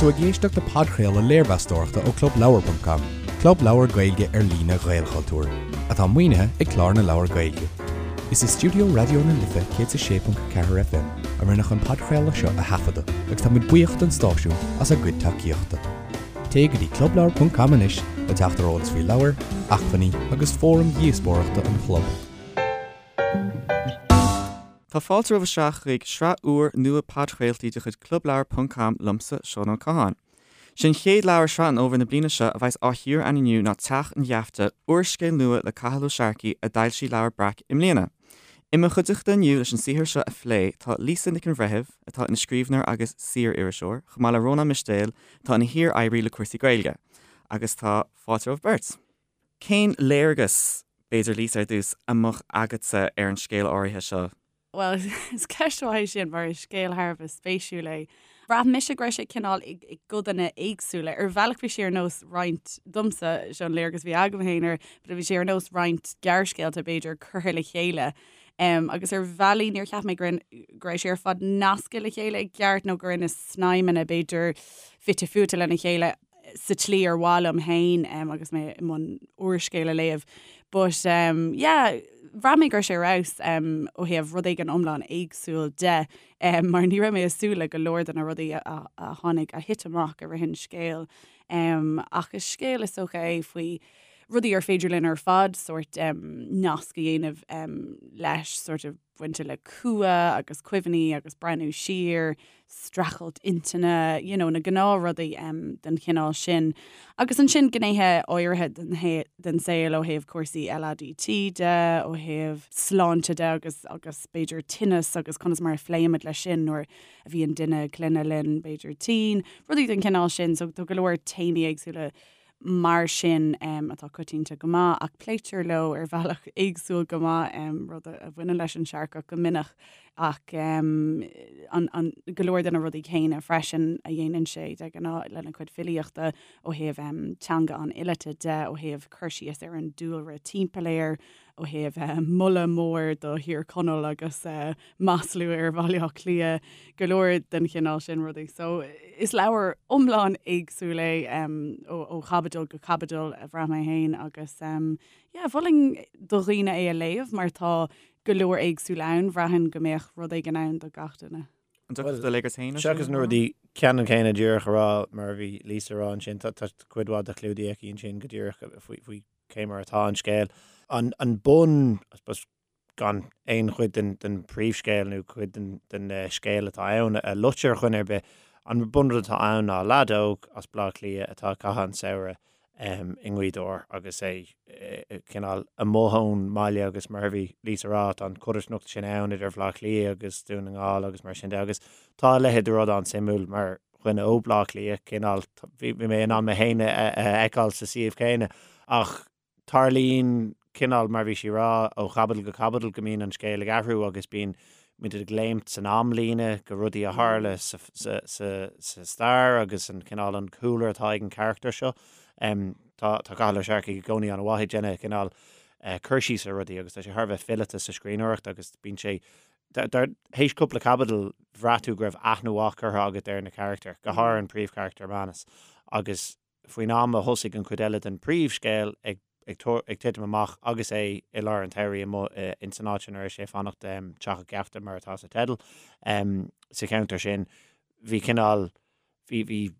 tú ag éisteacht le podchraoladh léirmheastóireachta ó ClubLeabhar.com, club leabhar Gaeilge ar líne Ghaelchultúir, atá maoinithe ag Clár na Leabhar Gaeilge. Is i stiúideo Raidió na Life 106.4 FM a rinneadh an podchraoladh seo a thaifeadadh agus tá muid buíoch don stáisiún as a gcuid tacaíochta. Téigh go dtí clubleabhar.com anois le teacht ar eolas faoi leabhair, acmhainní agus fóraim dhíospóireachta an chlub. Tá fáilte romhaibh isteach chuig sraith úr nua podchraoltaí de chuid Clubleabhar ponc com liomsa, Seán Ó Catháin. Sé an chéad leabhar Sraith an Fhómhair na bliana seo a bheas á chíoradh againn inniu ná Teach an Gheafta, úrscéal nua le Cathal Ó Searcaigh a d'fhoilsigh Leabhar Breac i mbliana. I mo chuideachta inniu leis an saothar seo a phlé tá Lisa Nic an Bhreithimh, atá ina scríbhneoir agus saoririseoir, chomh maith le Rónán Mistéil, atá ina shíor-oibrí le cúrsaí Gaeilge. Agus tá fáilte romhaibh beirt. Cén léargas, b'fhéidir Lisa ar dtús, a mbeadh agatsa ar an scéal áirithe seo? Bhuel, is ceist mhaith é sin mar is scéal thar a bheith spéisiúil é. Bhraith mise go raibh sé cineál i gcodanna éagsúla. Ar bhealach bhí sé ar nós roinnt, domsa, seo an léargas a bhí agam féin air, but bhí sé ar nós roinnt gearrscéalta b'fhéidir curtha le chéile. Um, agus ar bhealaí níor cheap mé go raibh sé ar fad nasctha le chéile i gceart nó go raibh na snaidhmeanna b'fhéidir fite fuaite lena chéile. sa tslí ar mhaith liom féin agus mé i mbun úrscéal a léamh. But um, yeah, bhraith mé go raibh sé ar fheabhas um, ó thaobh rud éigin iomlán éagsúil de um, mar ní raibh mé ag súil le go leor de na rudaí a, a, a tháinig a thit amach i rith an scéil. Um, ach is scéal is dócha é faoi rudaí ar féidir linn ar fad sórt um, nasc a dhéanamh um, leis sort of bainte le cumha agus cuimhní agus breathnú siar, streachailt intinne, you know, na gnáthrudaí um, den chineál sin. Agus ansin gnéithe áirithe den, den saol ó thaobh cúrsaí LADT de, ó thaobh sláinte de agus, agus b'fhéidir tinneas agus conas mar a phléimid leis sin nuair a bhíonn duine clainne linn, b'fhéidir tinn, rudaí den chineál sin. So tá go leor téamaí éagsúla mar sin atá coitianta go maith, ach pléitear leo ar bhealach éagsúil go maith, rud a bhaineann leis an Searcach go minic, ach an go leor de na rudaí céanna freisin a dhéanann sé de ghnáth lena chuid filíochta ó thaobh teanga an fhileata de, ó thaobh cur síos ar an dúlra timpeall air, ó thaobh moladh mór do Thír Chonaill agus maslú ar Bhaile Átha Cliath, go leor den chineál sin rudaí. So is leabhar iomlán éagsúil é ó chaibidil go caibidil a bhraith mé féin agus yeah, mholfainn do dhaoine é a léamh mar tá go leor éagsúil ann, bhraithfinn go mbeadh rud éigin ann do gach duine. An dtiocfadh do léargas féin air sin? Seachas na rudaí ceannann céanna díreach a rá mar a bhí Lisa a rá ansin, tá cuid mhaith de clúdaithe aici ansin go díreach faoi cé mar atá an scéal. An bun, I suppose, gan aon chuid den, den príomhscéal nó cuid den, den scéal atá ann a loit ar dhuine ar bith, an bunrud atá ann ná leaid óg as Baile Átha Cliath atá ag caitheamh an samhradh i nGaoth Dobhair agus é cineál amuigh ón mbaile agus mar a bhí Lisa a rá, tá an chodarsnacht sin ann idir Bhaile Átha Cliath agus Dún na nGall agus mar sin de agus tá a leithéid de rud an-suimiúil mar dhuine ó Bhaile Átha Cliath, cineál, bhí mé in ann mé féin a fheiceáil sa suíomh céanna ach tarlaíonn cineál, mar bhí sí a rá, ó chaibidil go caibidil go mbíonn an scéal ag athrú agus bíonn muid ag léimt san amlíne go rudaí a tharla sa stair agus an cineál an cúlra atá ag an charachtar seo. Tá Cathal Ó Searcaigh i gcónaí an-mhaith ag déanamh cineál cur síos ar rudaí agus tá sé thar a bheith fileata sa scríbhneoireacht agus bíonn sé Tar éis cúpla caibidil, bhraith tú go raibh aithne mhaith curtha agat ar na carachtair, go háirithe an príomhcharachtar, Manus, agus faoin am a thosaigh an chuid eile den phríomhscéal ag ag titim amach agus é i lár an tsamhraidh amuigh ins an áit ina raibh sé ag fanacht, Teach an Gheafta mar atá sa teideal, sa cheantar sin, bhí cineál, bhí, bhí,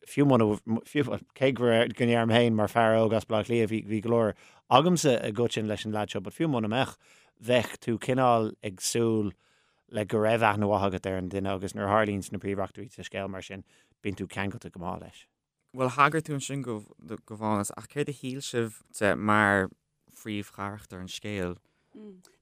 fiú muna, fiú, cé go raibh, go ndeirim féin mar fear óg as Baile Átha Cliath, bhí, bhí go leor agamsa i gcoiteann leis an leaid seo, but fiú muna mbeadh, bheadh tú cineál ag súil le go raibh aithne mhaith agat ar an duine agus nuair a tharlaíonns na príomheachtraí sa scéal mar sin, bíonn tú ceangailte go maith leis. Bhuel, thagair tú ansin go, do Mhánas, ach céard a shíl sibh de mar phríomhcharachtar an scéil.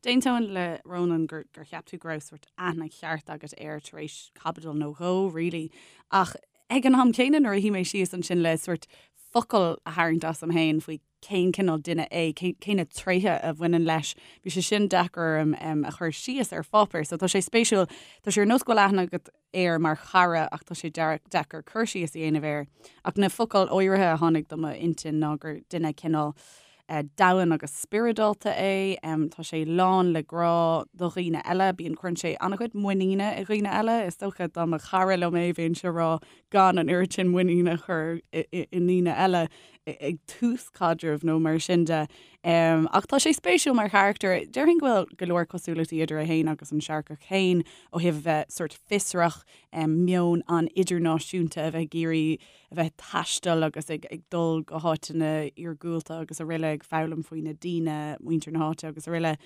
D'aontóinn le Rónán gur gur cheap tú go raibh sórt aithne cheart agat air tar éis caibidil nó dhó, really. Ach ag an am céanna nuair a shuigh mé síos ansin le sórt focal a tharraingt asam féin faoi cén cineál duine é, cé na tréithe a bhaineann leis, bhí sé sin deacair orm a chur síos ar pháipéar. So tá sé spéisiúil, tá sé ar nós go bhfuil aithne agat air mar chara ach tá sé deacair cur síos a dhéanamh air. Ach na focail áirithe a tháinig do m'intinn ná gur duine cineál. domhain agus spioradálta é. Tá sé lán le grá do dhaoine eile. Bíonn, cuireann sé an-chuid muiníne i dhaoine eile. Is dócha dá mba chara liom é bheinnse ag rá gan an oiread sin muiníne a chur i ndaoine eile ag tús caidrimh nó mar sin de. Ach tá sé spéisiúil mar charachtar. Déarfainn go bhfuil go leor cosúlachtaí idir é féin agus an Searcach féin ó thaobh a bheith sórt fiosrach, meon an-idirnáisiúnta, a bheith ag iarraidh a bheith ag taisteal agus ag dul go háiteanna iargúlta agus araile, ag foghlaim faoi na daoine, muintir na háite agus araile.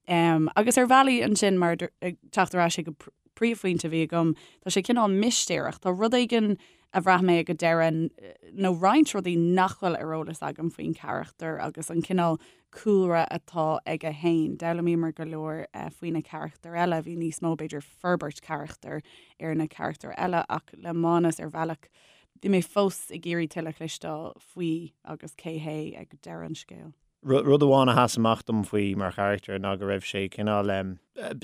Agus ar bhealaí ansin, mar ag teacht ar ais ag an príomhphointe a bhí agam, tá sé cineál mistéireach. Tá rud éigin a bhraith mé ag an deireadh, nó roinnt rudaí nach bhfuil ar eolas agam faoin charachtar agus an cineál cúlra atá aige féin. D'fhoghlaimíomar go leor faoi na carachtair eile, bhí níos mó, b'fhéidir, forbairt carachtair ar na carachtair eile ach le Mánas ar bhealach bhí mé fós ag iarraidh tuilleadh a chloisteáil faoi agus cé hé ag deireadh an scéil. Rud amháin a sheas amach dom faoi mar charachtar ná go raibh sé cineál,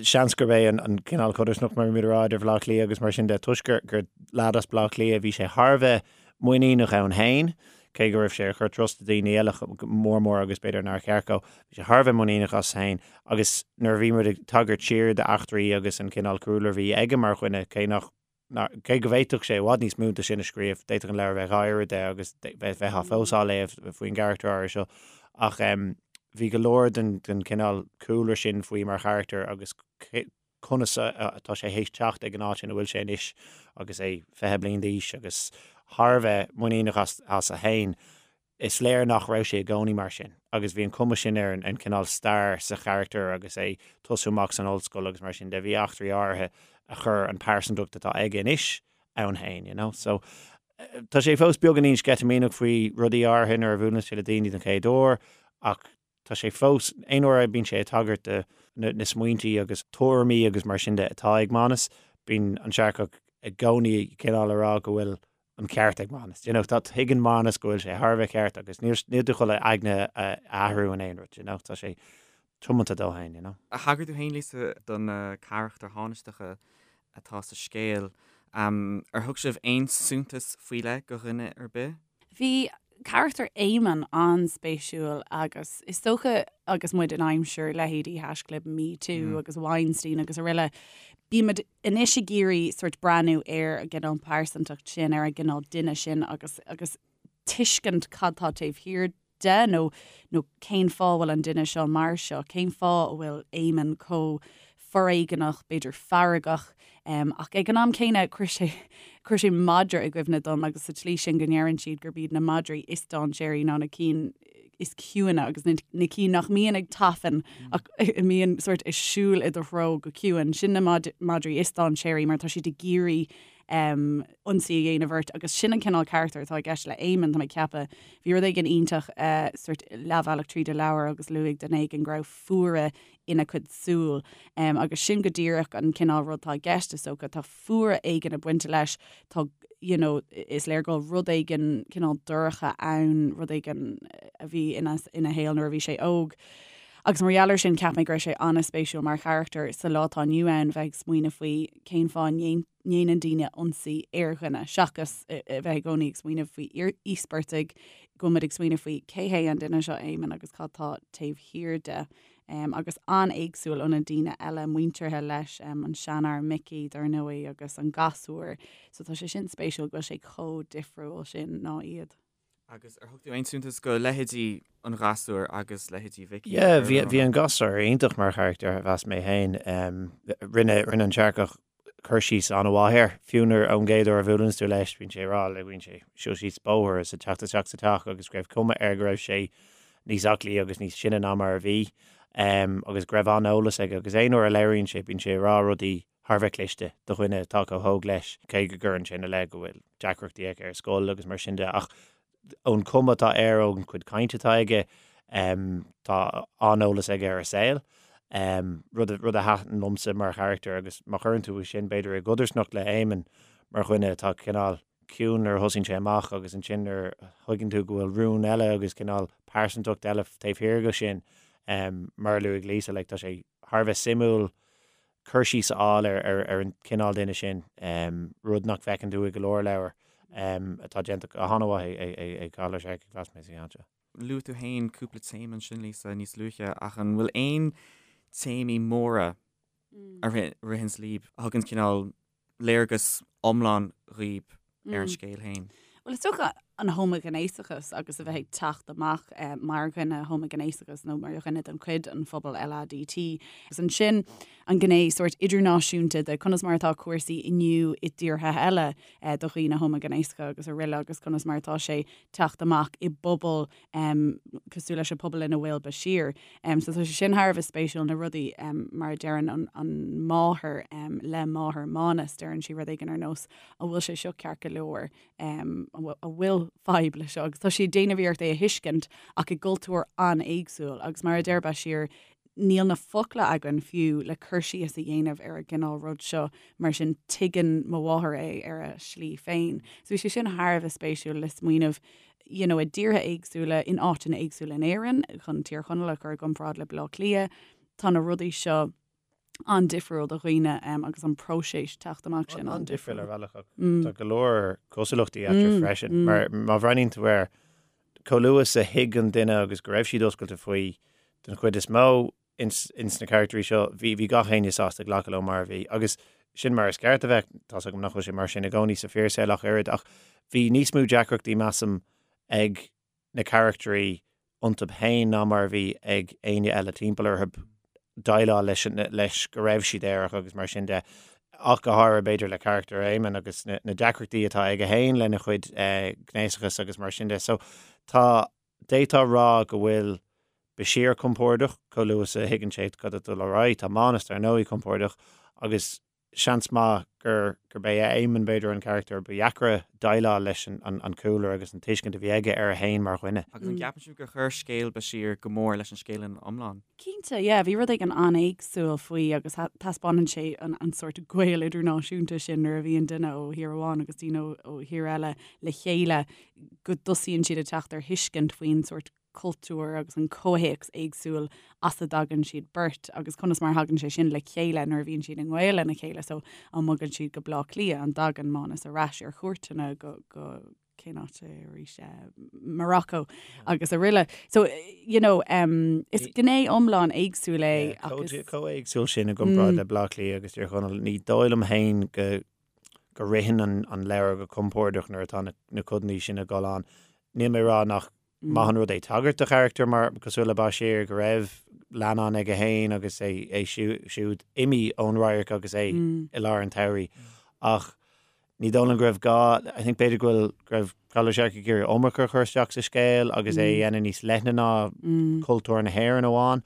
seans gurb é an cineál codarsnacht mar a bhímid a rá idir Bhaile Átha Cliath agus mar sin de, toisc gur gur leaid as Baile Átha Cliath bhí sé thar a bheith muiníneach ann féin, cé go raibh sé ag cur trust i daoine eile mór mór agus b'fhéidir nár cheart dó, bhí sé thar a bheith muiníneach as féin agus nuair a bhí muid ag tagairt siar d'eachtraí agus an cineál cúlra a bhí aige mar dhuine, cé nach, cé go bhféadfadh sé i bhfad níos mó de sin a scríobh, d'fhéadfadh an leabhar a bheith dhá oiread de agus bheifeá fós á léamh faoin gcarachtar áirithe seo ach bhí go leor den cineál cúlra sin faoi mar charachtar agus conas atá sé théis teacht ag an áit ina bhfuil sé anois agus é 20 bliain d'aois agus thar a bheith muiníneach as a fhéin. Is léir nach raibh sé i gcónaí mar sin agus bhí an cuma sin ar an cineál stair sa charachtar agus é tosú amach san ollscoil agus mar sin de. Bhí eachtraí áirithe a chuir an pearsantacht atá aige anois ann féin, you know. So tá sé fós beagáinín sceitimíneach faoi rudaí áirithe nuair a bhuaileann sé le daoine den chéad uair ach Tá sé fós, aon uair a bíonn sé ag tagairt do na smaointí agus tuairimí agus mar sin de atá ag Mánas, bíonn an Searcach i gcónaí cineál a rá go bhfuil an ceart ag Mánas. You know, tá, tuigeann Mánas go bhfuil sé thar a bheith ceart agus níl, níl tú chun a aigne a athrú in aon rud, you know, tá sé tiomanta dó féin, you know. Thagair tú féin, Lisa, do na carachtair thánaisteacha atá sa scéal. Ar thug sibh aon suntas faoi leith do dhuine ar bith? Bhí carachtar Éamonn an-spéisiúil agus is dócha agus muid in aimsir leithéidí haischlib MeToo agus Weinstein agus araile, bímid anois ag iarraidh sort breathnú ar an gcineál pearsantacht sin, ar an gcineál duine sin agus agus tuiscint cad tá taobh thiar de nó nó cén fáth a bhfuil an duine seo mar seo, cén fáth a bhfuil Éamonn chomh foréigeanach, b'fhéidir feargach, ach ag an am céanna chuir sé chuir sé madra i gcuimhne dom agus sa tslí sin go ndeireann siad gurb iad na madraí is dainséaraí ná na cinn is ciúine agus na na cinn nach mbíonn ag tafann ach a mbíonn sort ag siúl i do threo go ciúin. Sin na madraí is dainséaraí mar tá siad ag iarraidh um, ionsaí a dhéanamh ort agus sin an cineál carachtar atá i gceist le Éamonn tá mé ag ceapadh. Bhí rud éigin iontach uh, sort leathbhealach tríd an leabhar agus luaigh duine éigin go raibh fuaire ina cuid súl. Um, agus sin go díreach an cineál rud atá i gceist is dócha, tá fuaire éigin ag baint leis, tá you know, is léir go bhfuil rud éigin cineál dorcha ann, rud éigin a bhí ina, ina shaol nuair a bhí sé óg. Agus mar gheall air sin cheap mé go raibh sé an-spéisiúil mar charachtar sa lá atá inniu ann bheith ag smaoineamh faoi cén fáth a ndéanann daoine ionsaí ar dhuine, seachas a bheith i gcónaí ag smaoineamh faoi íospartaigh, go bhfuil muid ag smaoineamh faoi cé hé an duine seo Éamonn agus cad tá taobh thiar de. Agus an-éagsúil ó na daoine eile muinteartha leis, an seanfhear Micí dar ndóigh agus an gasúr. So tá sé sin spéisiúil go bhfuil sé chomh difriúil sin ná iad. Agus ar thug tú aon suntas go leithéidí an ghasúir agus leithéidí Mhicí? Yeah, bhí bhí an gasúr iontach mar charachtar, mheas mé féin. Rinne rinne an Searcach cur síos an-mhaith air. Fiú nuair ón gcéad uair a bhuaileann tú leis, bíonn sé ag rá le bíonn sé siúl síos bóthar is ag teacht isteach sa teach agus go raibh cuma air go raibh sé níos aclaí agus níos sine ná mar a bhí agus go raibh an-eolas aige agus aon uair a labhraíonn sé bíonn sé ag rá rudaí thar a bheith cliste do dhuine atá chomh hóg leis, cé go gcuireann sé ina leith go bhfuil deacrachtaí aige ar scoil agus mar sin de, ach ón chuma atá air, ón chuid cainte atá aige, tá an-eolas aige ar an saol, rud rud a thaitin liomsa mar charachtar agus má chuireann tú sin b'fhéidir i gcodarsnacht le Éamonn mar dhuine atá cineál ciúin nuair a thosaíonn sé amach agus ansin nuair a thuigeann tú go bhfuil rún eile agus cineál pearsantacht eile taobh thiar de sin, mar a luaigh Lisa, like tá sé thar a bheith suimiúil cur síos a fháil ar an chineál duine sin, rud nach bhfeiceann tú i go leor leabhar atá déanta go han-mhaith ag Cathal Ó Searcaigh, mheas mé, sa cheann seo. Luaigh tú féin cúpla téama ansin, Lisa, níos luaithe, ach an bhfuil aon téamaí móra a ritheanns libh, a thugann cineál léargas iomlán dhaoib ar an scéal féin? Bhuel, is dócha an homaighnéasachas agus a bheith ag teacht amach mar dhuine homaighnéasach nó mar dhuine den chuid den phobal LADT. Agus ansin an gné sórt idirnáisiúnta de conas mar atá cúrsaí inniu i dtíortha eile do dhaoine homaighnéasacha agus araile agus conas mar atá sé teacht amach i bpobal cosúil leis an pobal ina bhfuil Bashir. So tá sé sin thar a bheith spéisiúil na rudaí mar a deireann an, an máthair le máthair Mánas, deireann sí rud éigin ar nós an bhfuil sé seo ceart go leor, an bhfuil fadhb le seo agus tá sí ag déanamh iarracht é a thuiscint ach i gcultúr an-éagsúil agus mar a deir Bashir níl na focla againn fiú le cur síos a dhéanamh ar an gcineál rud seo, mar sin tuigeann mo mháthair é ar a slí féin. So bhí sé sin thar a bheith spéisiúil le smaoineamh you know, i dtíortha éagsúla, in áiteanna éagsúla in Éirinn, chun Tír Chonaill a chur i gcomparáid le Baile Átha Cliath, tá na rudaí seo an-difriúil do dhaoine agus an próiseas teacht amach sin an-difriúil ar bhealach ach tá go leor cosúlachtaí eatarthu freisin. Mar má bhreathnaíonn tú air, chomh luath is a thuig an duine agus go raibh siad oscailte faoi den chuid is mó ins ins na caractairí seo, bhí bhí gach éinne sásta glacadh leo mar a bhí. Agus sin mar is ceart a bheith, tá's agam nach bhfuil sé mar sin i gcónaí sa fíorshaol ach oiread, ach bhí níos mó deacrachtaí measaim ag na caractairí iontu féin ná mar a bhí ag éinne eile timpeall orthu déileáil leis leis go raibh siad aerach agus mar sin de. Ach go háirithe b'fhéidir le carachtar Éamonn agus na na deacrachtaí atá aige féin lena chuid gnéasachas agus mar sin de. So tá D'fhéadfá a rá go bhfuil Bashir compordach, chomh luath is a thuigeann sé cad atá ag dul ar aghaidh. Tá Mánas, dar ndóigh, compordach agus seans maith gur gurb é Éamonn, b'fhéidir, an carachtar ba dheacra déileáil leis an cúlra agus an tuiscint a bhí aige air féin mar dhuine. Agus an gceapann sibh gur chuir scéal Bashir go mór leis an scéal ina iomlán? Cinnte, yeah, bhí rud éigin an-éagsúil faoi agus taispeánann sé an sórt gaol idirnáisiúnta sin nuair a bhíonn duine ó thír amháin agus daoine ó thír eile le chéile. go dtosaíonn siad ag teacht ar thuiscint faoin sórt cultúr agus an comhthéacs éagsúil as a dtagann siad beirt agus conas mar a thagann sé sin le chéile nuair a bhíonn siad i ngaol lena chéile. So an mbogann siad go Bleá Cliath, an dtagann Mánas ar ais ar chuairteanna go go cén áit é arís eh, Morocco agus araile. So you know, um, is gné iomlán éagsúil é agus chomh éagsúil sin i gcomparáid le Bleá Cliath agus Tír Chonaill, ní dóigh liom féin go go ritheann an leabhar go compordach nuair atá na codanna sin ag dul ann. Níl mé ag rá nach maith an rud é tagairt do charachtar mar cosúil le Bashir go raibh leannán aige féin agus é é siúd imithe ón radharc agus é i lár an tsamhraidh. Ach ní dóigh liom go raibh gá, I think b'fhéidir go bhfuil go raibh Cathal Ó Searcaigh ag iarraidh iomarca a chur isteach sa scéal agus é a dhéanamh níos leithne ná cultúr na hÉireann amháin.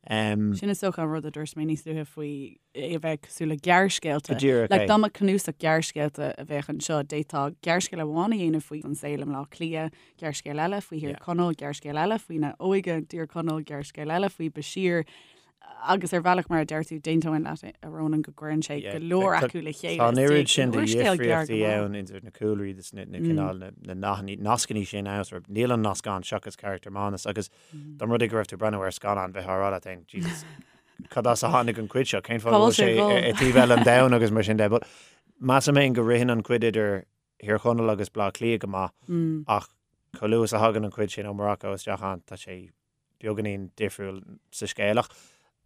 Sin is dócha an rud a dúirt mé níos luaithe faoi é a bheith cosúil le gearrscéalta. Go díreach Like, é. dá mba cnuasach gearrscéalta a bheadh anseo, d'fhéadfá gearrscéal amháin a dhéanamh faoi an saol i mBleá Cliath, gearrscéal eile faoi Thír Yeah. Chonaill, gearrscéal eile faoina óige i dTír Chonaill, gearrscéal eile faoi Bashir. Agus ar bhealach, mar a deir tú, d'aontóinn leat, a Rónáin, go gcuireann sé go leor acu le chéile. Tá an oiread sin de dhifríochtaí ann idir na cúlraí agus na cineál na nathanna, nascanna sin ann, sort of, níl an nasc ann seachas carachtar Mánas agus dá mba rud é go raibh tú ag breathnú ar scannán bheifeá ag rá leat féin, Jesus, cad as a tháinig an cuid seo, cén fáth go bhfuil sé i taobh eile an domhain agus mar sin de. But measaim féin go ritheann an cuid idir Thír Chonaill agus Bleá Cliath go maith ach chomh luath is a thagann an cuid sin ó Morocco isteach ann tá sé beagáinín difriúil sa scéal. Ach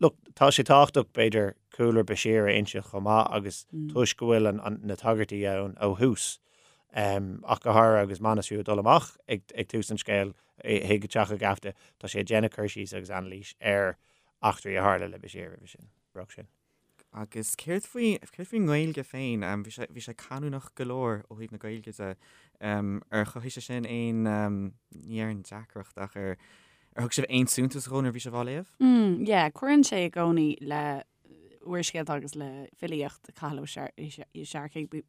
look, tá sé tábhachtach b'fhéidir cúlra Bashir a inse chomh maith agus toisc go bhfuil na tagairtí ann ó thús ach go háirithe agus Manus fiú ag dul amach ag tús an scéil chuig teach an gheafta, tá sé ag déanamh cur síos agus anailís ar eachtraí a tharla le Bashir roimhe sin, roimh sin. Agus céard faoi, céard faoin nGaeilge féin? Bhí sé, bhí sé canúnach go leor ó thaobh na Gaeilge de. Ar chothaigh sé sin aon, ní déarfainn deacracht ach ar, ar thug sibh aon suntas dhó nuair a bhí sibh á léamh? Mm, yeah, cuireann sé i gcónaí le úrscéalta agus le filíocht Cathal Ó Searcaigh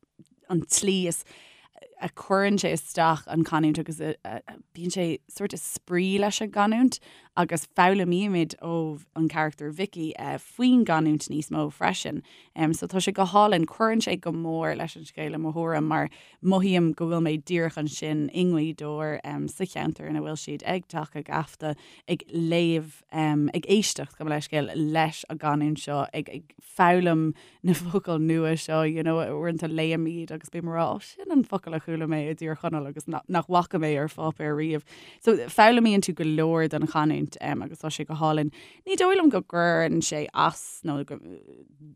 an tslí is a chuireann sé isteach an canúint agus bíonn sé sort of spraoi leis an gcanúint agus foghlaimímid ó an charachtar Vicky faoin gcanúint níos mó freisin. So tá sé go hálainn, cuireann sé go mór leis an scéal i mo thuairim mar mothaím go bhfuil mé díreach ansin i nGaoth Dobhair sa cheantar ina bhfuil siad ag Teach a' Gheafta ag léamh ag éisteacht, gabh mo leithscéal, leis an gcanúint seo, ag foghlaim na focail nua seo, you know, uaireanta léim iad agus bím ag rá, oh, sin an focal a chuala mé i dTír Chonaill agus nach bhfaca mé ar pháipéar riamh. So foghlaimíonn tú go leor den chanúint agus tá sé go hálainn. Ní dóigh liom go gcuireann sé as nó go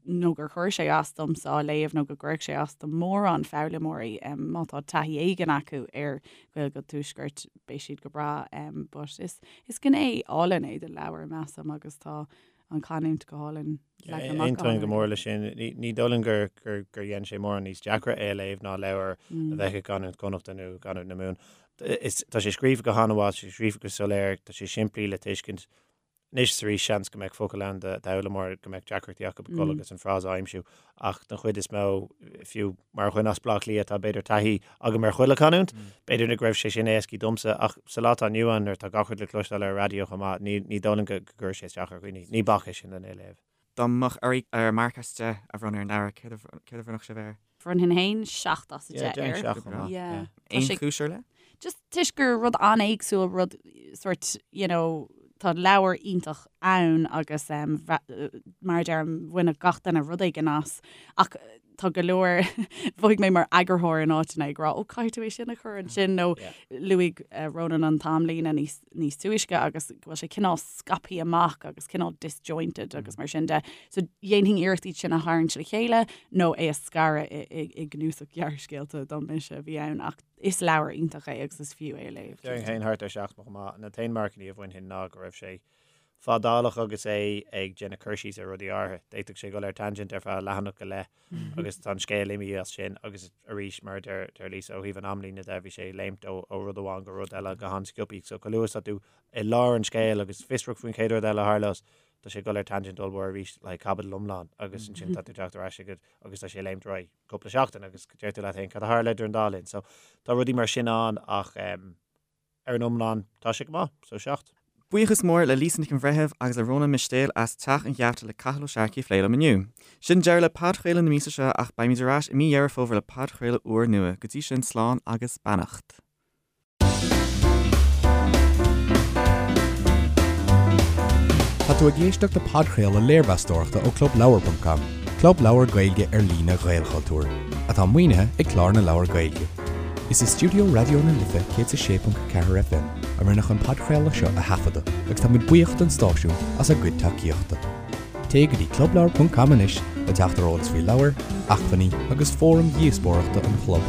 nó gur chuir sé as domsa á léamh nó go gcuirfeadh sé as do mórán foghlaimeoirí má tá taithí éigin acu ar Ghaeilge an Tuaiscirt beidh siad go breá but is is gné álainn é den leabhar measaim agus tá an chanúint go hálainn leagtha amach go Aontaím go mór leis sin. Ní dóigh liom gur gur gur dhein sé mórán níos deacra é a léamh ná leabhar a bheadh i gcanúint Chonnachta nó i gcanúint na Mumhan. Is tá sé scríofa go han-mhaith, tá sé scríofa go soiléir, tá sé simplí le tuiscint. Anois is arís seans go mbeadh focal ann d'fhoghlaimeoir go mbeadh deacrachtaí acu ag dul agus an frása a aimsiú ach den chuid is mó, fiú mar dhuine as Baile Átha Cliath tá b'fhéidir taithí agam ar chuile chanúint, b'fhéidir nach raibh sé sin éascaí domsa ach sa lá atá inniu ann nuair atá gach rud le cloisteáil ar an raidió chomh maith, ní dóigh liom go gcuirfeadh sé isteach ar dhaoine. Ní bac é sin lena léamh. Dá mbeadh oraibh ar marc as 10 a bhronnadh ar an leabhar, céard a bhronnfadh sibh air? Bhronnfainn féin 7 as 10 air. Yeah, 7 chomh maith. Yeah. Aon chúis ar leith? Just toisc gur rud an-éagsúil, rud sort, you know, tá leabhar iontach ann agus um, mar a deirim, bhainfeadh gach duine rud éigin as ach tá go leor mhothaigh mé mar eagarthóir in áiteanna ag rá ó caithfidh tú é sin a chur ansin nó luaigh eh, Ronan an t-amlíne níos níos túisce agus go bhfuil sé cineál scaipthe amach agus cineál disjointed agus mar sin de. So dhéanfainn iarracht iad sin a tharraingt le chéile nó é a scaradh i gcnuasach gearrscéalta dá mise a bhí ann ach is leabhar iontach é agus is fiú é a léamh. Déarfainn féin thart ar 7 chomh maith. An t-aon marcannaí a bhainfinn ná go raibh sé fadálach agus é ag déanamh cur síos ar rudaí áirithe. D'fhéadfadh sé dul ar tangent ar feadh leathanach go leith agus tá an scéal imithe as sin agus arís mar a deir deir Lisa ó thaobh an amlíne de bhí sé ag léimt ó ó rud amháin go rud eile go han-sciobtha. So chomh luath is atá tú i lár an scéil agus fiosrach faoin chéad rud eile a tharlós tá sé ag dul ar tangent ollmhór arís le caibidil iomlán agus ansin tá tú teacht ar ais agat agus tá sé ag léimt ar aghaidh cúpla seachtain agus deir tú leat féin cad a tharla idir an dá linn. So tá rudaí mar sin ann ach um, ar an iomlán tá sé go maith, so 7. Buíochas mór le Lisa Nic an Bhreithimh agus le Rónán Mistéil as Teach an Gheafta le Cathal Ó Searcaigh a phlé liom inniu. Sin deireadh le podchraoladh na míosa seo ach beimid ar ais i mí Dheireadh Fómhair le podchraoladh úr nua. Go dtí sin, slán agus beannacht. Tá tú ag éisteacht le podchraoladh léirmheastóireachta ó ClubLeabhar.com, club leabhar Gaeilge ar líne Ghaelchultúir, atá maoinithe ag Clár na Leabhar Gaeilge. Is i stiúideo Raidió na Life 106.4 FM a rinneadh an podchraoladh seo a thaifeadadh agus táimid buíoch don stáisiún as a gcuid tacaíochta. Téigh go dtí clubleabhar.com anois le teacht ar eolas faoi leabhair, acmhainní agus fóraim dhíospóireachta an chlub.